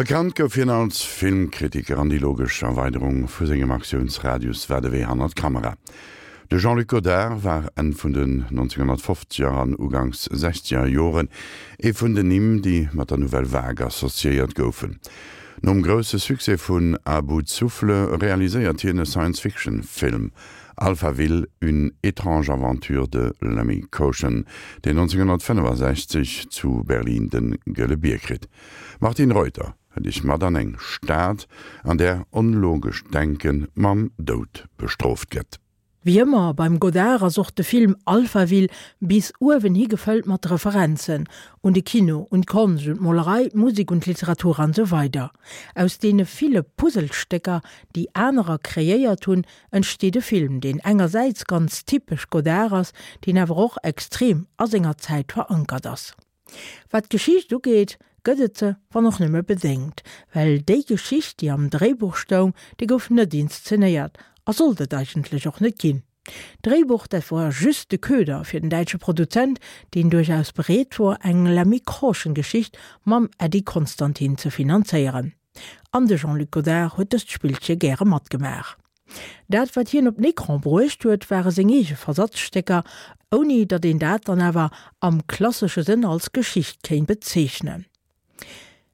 Bekannt gouf hien als Filmkritiker an déi logesch Erweiderung vu sengem Aktiounsradius war de Wee hannert d'Kamera. De Jean-Luc Godard war Enn vun den 1950er an uganks sechzeger Joren ee vun den Nimm, déi mat der Nouvelle Vague associéiert goufen. Nom grousse Succès vun À bout de souffle realiséiert hien e Science-Fiction-Film, Alphaville, une étrange aventure de Lemmy Caution, deen 1965 zu Berlin de Gëlle Bier kritt. D'Martine Reuter hëlt iech mat an eng Stad, an där onlogescht Denke mam Doud bestrooft gëtt. Wéi ëmmer beim Godard ass och de Film Alphaville bis uewen hi gefëllt mat Referenzen, un de Kino, un d'Konscht, un d'Molerei, d'Musek, un d'Literatur an esou weider. Aus deene ville Puzzlestécker, déi anerer kreéiert hunn, entsteet e Film, deen engersäits ganz typesch Godard ass, deen awer och extrem a senger Zäit verankert ass. Wat d'Geschicht ugeet, gëtt et se, wann och nëmme bedéngt, well déi Geschicht, déi am Dréibuch stoung, déi gouf net inszenéiert a sollt et eigentlech och net ginn. D'Dréibuch, dat wor just de Köder fir den däitsche Produzent, deen duerchaus bereet wor, eng Lemmy Caution-Geschicht mam Eddie Constantine ze finanzéieren. An de Jean-Luc Godard huet dëst Spillche gäre matgemaach. Dat wat hien op den Ecran bruecht huet, ware seng eege Versatzstécker, ouni datt een dat dann awer am klassesche Sënn als Geschicht kéint bezeechnen.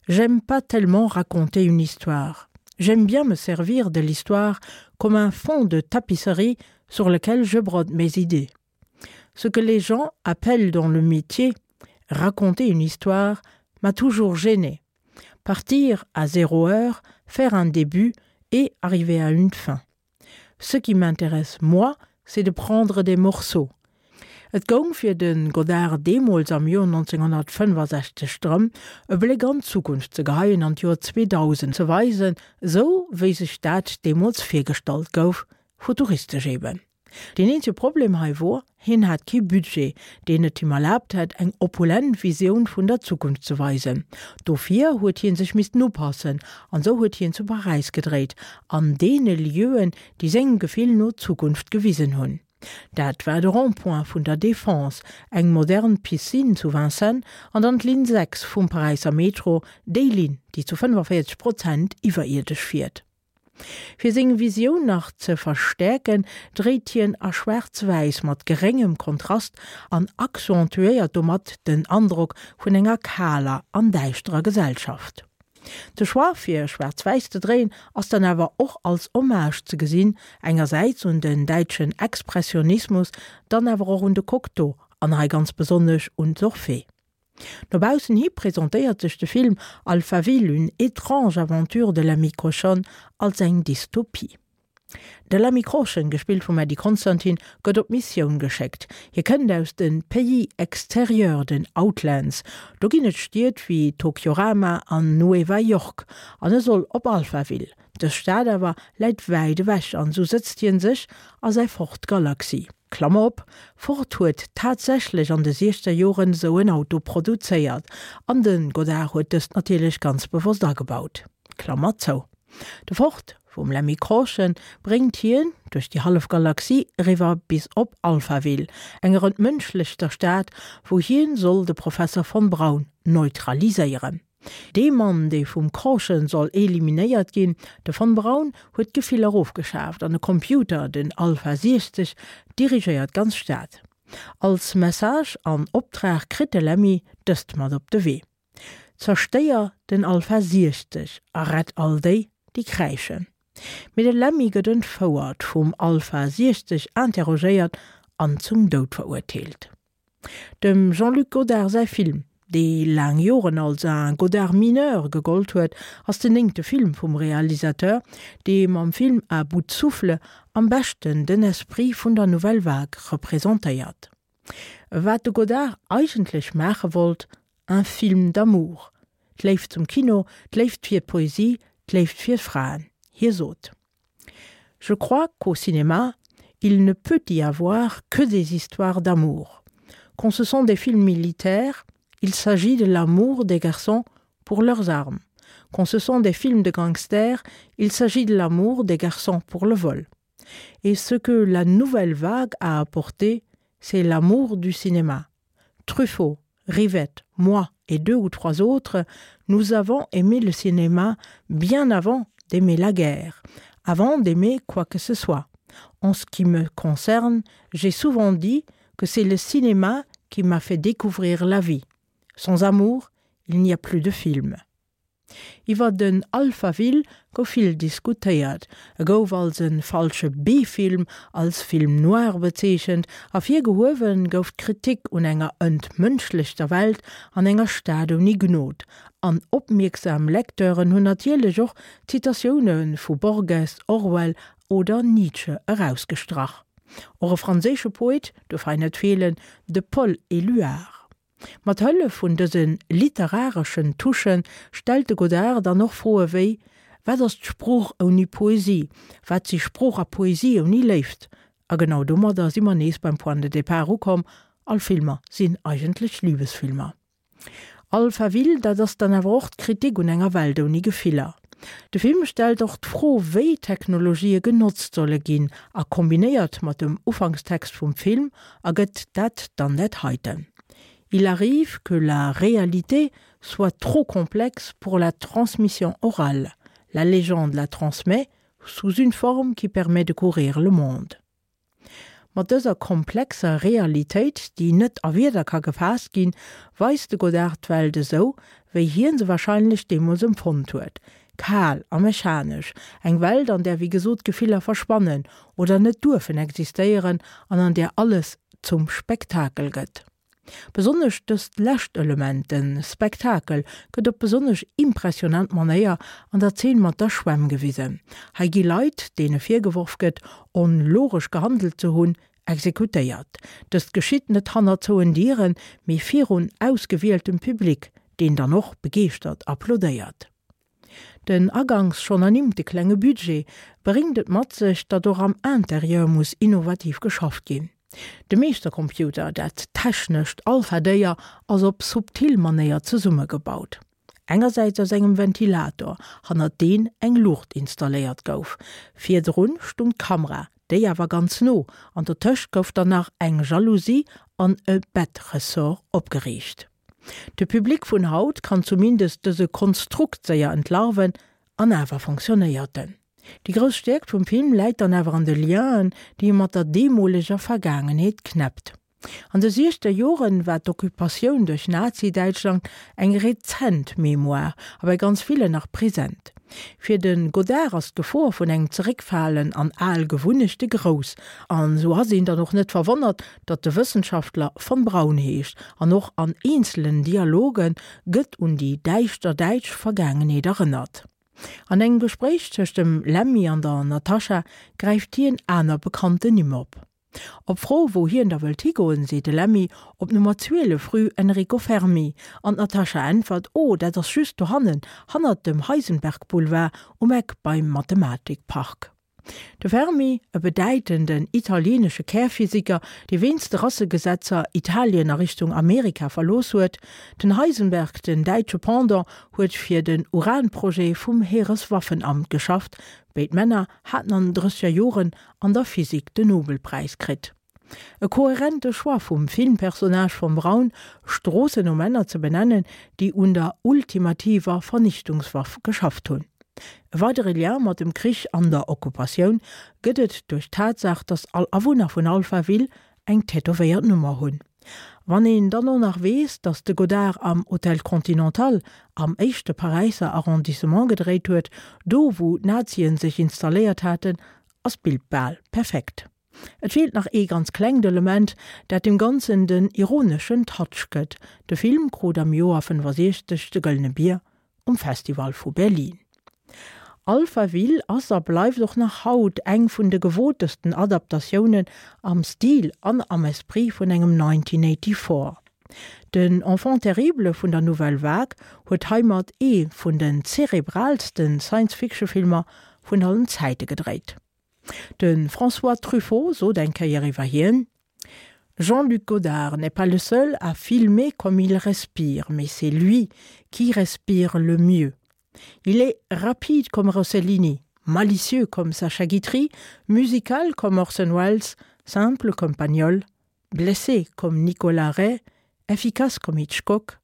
J'aime pas tellement raconter une histoire. J'aime bien me servir de l'histoire comme un fond de tapisserie sur lequel je brode mes idées. Ce que les gens appellent dans le métier raconter une histoire m'a toujours gêné. Partir à zéro heure, faire un début et arriver à une fin. Ce qui m'intéresse moi, c'est de prendre des morceaux. Et goung fir de Godard deemools am Joer 1965 drëm, e Bléck an d'Zukunft ze geheien an d'Joer 2000 ze weisen, esou wéi sech dat deemools virgestallt gouf, futuristesch eben. Deen eenzege Problem hei wor, hien hat kee Budget, deen et him erlaabt hätt, eng opulent Visioun vun der Zukunft ze weisen. Dofir huet hien sech missten upassen, an sou huet hien zu Paräis gedréit, an deene Lieuen, déi sengem Gefill no d'Zukunft gewisen hunn. Dat war de Rond-point vun der Défense, eng modern Piscine zu Vincennes an dann d'Linn 6 vum Paräisser Metro, déi Linn, déi zu 45 Prozent iwwerierdesch fiert. Fir seng Visioun nach ze verstäerken, dréit hien a Schwaarz-Wäiss mat geréngem Kontrast an accentuéiert domat den Androck vun enger kaler an däischterer Gesellschaft. De Choix fir schwaarz-wäiss ze dréien ass dann awer och als Hommage ze gesinn, engersäits un den däitschen Expressionismus, dann awer och un de Cocteau an hei ganz besonnesch un d'Orphée. No baussen hi presentéiert sech de Film Alphaville, une étrange aventure de l'ami Cochonne als eng Dystopie. De L'ami Cochon, gespillt vum Eddie Constantine, gëtt op Missioun geschéckt. Hie kënnt aus de Pays extérieurs, den Outlands. Do ginn et Stied wéi Tokyorama an Nueva York. An e soll op Alphaville. Dës Stad awer läit wäit ewech an esou sëtzt hien sech a säi Ford Galaxy. Klammer op, Ford huet tatsächlech an de siechzer Joren esou en Auto produzéiert, an de Godard huet dëst natierlech ganz bewosst agebaut. Klammer zou. De Ford vum Lemmy Caution bréngt hien duerch déi hallef Galaxie eriwwer bis op Alphaville, enger entmënschlechter Stad, wou hien soll de Professer von Braun neutraliséieren. Dee Mann, dee vum Caution soll eliminéiert ginn, de von Braun, huet d'Gefiller ofgeschaaft an e Computer, den Alpha 60, dirigéiert d'ganz Stad. Als Message an Optrag kritt de Lemmy dëst mat op de Wee, Zerstéier den Alpha 60 a rett all déi, déi kräischen. Mee de Lemmy gëtt entfouert, vum Alpha 60 interrogéiert an zum Doud verurteelt. Dem Jean-Luc Godard säi Film, dee laang Joren als un Godard mineur gegollt huet, ass den néngte Film vum Realisateur, dee mam Film À bout de souffle am beschten den Esprit vun der Nouvelle Vague representéiert. Wat de Godard eigentlech maache wollt, un film d'amour, d'Léift zum Kino, d'Léift fir d'Poesie, d'Léift fir Fraen. Hie sot. Je crois qu'au cinéma, il ne peut y avoir que des histoires d'amour. Quand ce sont des films militaires, il s'agit de l'amour des garçons pour leurs armes. Quand ce sont des films de gangsters, il s'agit de l'amour des garçons pour le vol. Et ce que la nouvelle vague a apporté, c'est l'amour du cinéma. Truffaut, Rivette, moi, et deux ou trois autres, nous avons aimé le cinéma bien avant d'aimer la guerre, avant d'aimer quoi que ce soit. En ce qui me concerne, j'ai souvent dit que c'est le cinéma qui m'a fait découvrir la vie. Sans amour, il n'y a plus de film. Iwwer den Alphaville gouf vill diskutéiert. E gouf als e falsche B-Film, als Film noir bezeechent. Ervirgehuewe gouf d'Kritik un enger entmënschlechter Welt an enger Stad ouni Gnod. An opmierksam Lecteuren hunn natierlech och Zitatioune vu Borges, Orwell oder Nietzsche erausgestrach. Och e franséische Poet duerf hei net feelen, de Paul Éluard. Mat Hëllef vun dëse literareschen Touchen stellt de Godard dann och Froe wéi, Wat ass d'Sprooch ouni Poesie? Wat si Sprooch a Poesie ouni Léift? A genau domadder si mer nees beim Point de départ ukomm, All Filmer sinn eigentlech Libesfilmer. Alphaville, dat ass dann awer och d'Kritik un enger Welt ouni Gefiller. De Film stellt och d'Fro, wéi Technologië genotzt solle ginn a kombinéiert mat dem Ufankstext vum Film ergëtt dat dann dat heiten, Il arrive que la réalité soit trop complexe pour la transmission orale. La légende la transmet sous une forme qui permet de courir le monde. Mat dëser komplexer Realitéit, déi net a Wierder ka gefaasst ginn, weist de Godard d'Welt esou, wéi hien se warscheinlech deemools empfonnt huet, kal a mechanesch, eng Welt, an där wéi gesot d'Gefiller verschwannen oder net duerfen existéieren an an där alles zum Spektakel gëtt. Besonnesch dëst lescht Element, de Spektakel, gëtt op besonnesch impressionant Manéier an der Zeen mat der Schwämm gewisen. Hei gi Leit, deene virgeworf gëtt, onlogesch gehandelt ze hunn, exekutéiert. Dëst geschitt net hannert zouen Dieren, mee virun ausgewieltem Public, deen dann och begeeschtert applaudéiert. Den aganks schonn ernimmte klenge Budget bréngt et mat sech, datt och am Interieur muss innovativ geschafft ginn. De Meeschtercomputer, dat technescht Alpha-Déier, ass op subtil Manéier zesummegebaut. Engersäits aus engem Ventilator, hannert deen eng Luucht installéiert gouf. Virdrun stung d'Kamera, déi awer ganz no, an dotëscht gouf dann nach eng Jalousie an e Bettressort opgeriicht. De Public vun haut kann zumindest dëse Konstrukt séier entlarven, an awer fonctionnéiert en. Déi grouss Stäerkt vum Film läit dann awer an de Lienen, déi e mat der deemoleger Vergaangenheet knäppt. An de siechzeger Joren war d'Occupatioun duerch Nazi-Däitschland eng rezent Mémoire a bei ganz villen nach present. Fir de Godard ass d'Gefor vun engem Zeréckfalen an al Gewunnechte grouss, an esou ass een dann och net verwonnert, datt de Wëssenschaftler von Braun heescht an och an eenzelen Dialoge gëtt un déi däischter däitsch Vergaangenheet erënnert. An engem Gespréich tëscht dem Lemmy an der Natascha gräift hien aner bekannten Nimm op. Op Fro, wou hien da wëllt higoen, seet de Lemmy, op Nummer 12 rue Enrico Fermi. An d'Natascha äntwert, Oh, dat ass just dohannen, hannert dem Heisenberg-Boulevard, um Eck beim Mathematikpark. De Fermi, e bedäitenden italieenesche Kärphysiker, dee wéinst de Rassegesetzer Italien a Richtung Amerika verlooss huet. Den Heisenberg, den däitsche Pendant, huet fir den Uranprojet vum Heereswaffenamt geschafft. Béid Männer haten an den drësseger Joren an der Physik den Nobelpräis kritt. E kohärente Choix vum Filmpersonnage vom Braun, Stroossen no Männer ze benennen, déi un der ultimativer Vernichtungswaff geschafft hunn. E weidere Lien mat dem Krich an der Okkupatioun gëtt et duerch d'Tatsaach, datt all Awunner vun Alphaville eng tätowéiert Nummer hunn. Wann een dann och nach weess, datt de Godard am Hôtel Continental am éischte Paräisser Arrondissement gedréit huet, do wou d'Nazien sech installéiert haten, ass d'Bild bal perfekt. Et feelt nach ee ganz klengt Element, dat dem Ganzen den ironeschen Touch gëtt, De Film krut am Joer 65 de Gëllene Bier um Festival vu Berlin. Alphaville ass a bleift och nach haut eng vun de gewotesten Adaptatiounen am Stil an am Esprit vun engem 1984. Den Enfant terrible vun der Nouvelle Vague huet heimat ee vun den zerebraalsten Science-Fiction-Filmer vun allen Zäite gedréit. De François Truffaut sot eng Kéier iwwer hien, Jean-Luc Godard n'est pas le seul à filmer comme il respire, mais c'est lui qui respire le mieux. Il est rapide comme Rossellini, malicieux comme Sacha Guitry, musical comme Orson Welles, simple comme Pagnol, blessé comme Nicolas Ray, efficace comme Hitchcock.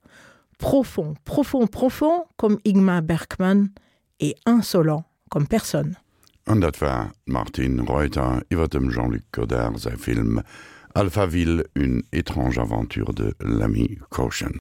Profond, profond, profond comme Ingmar Bergman et insolent comme personne. An dat war d'Martine Reuter iwwer dem Jean-Luc Godard säi Film Alphaville, une étrange aventure de l'ami Caution.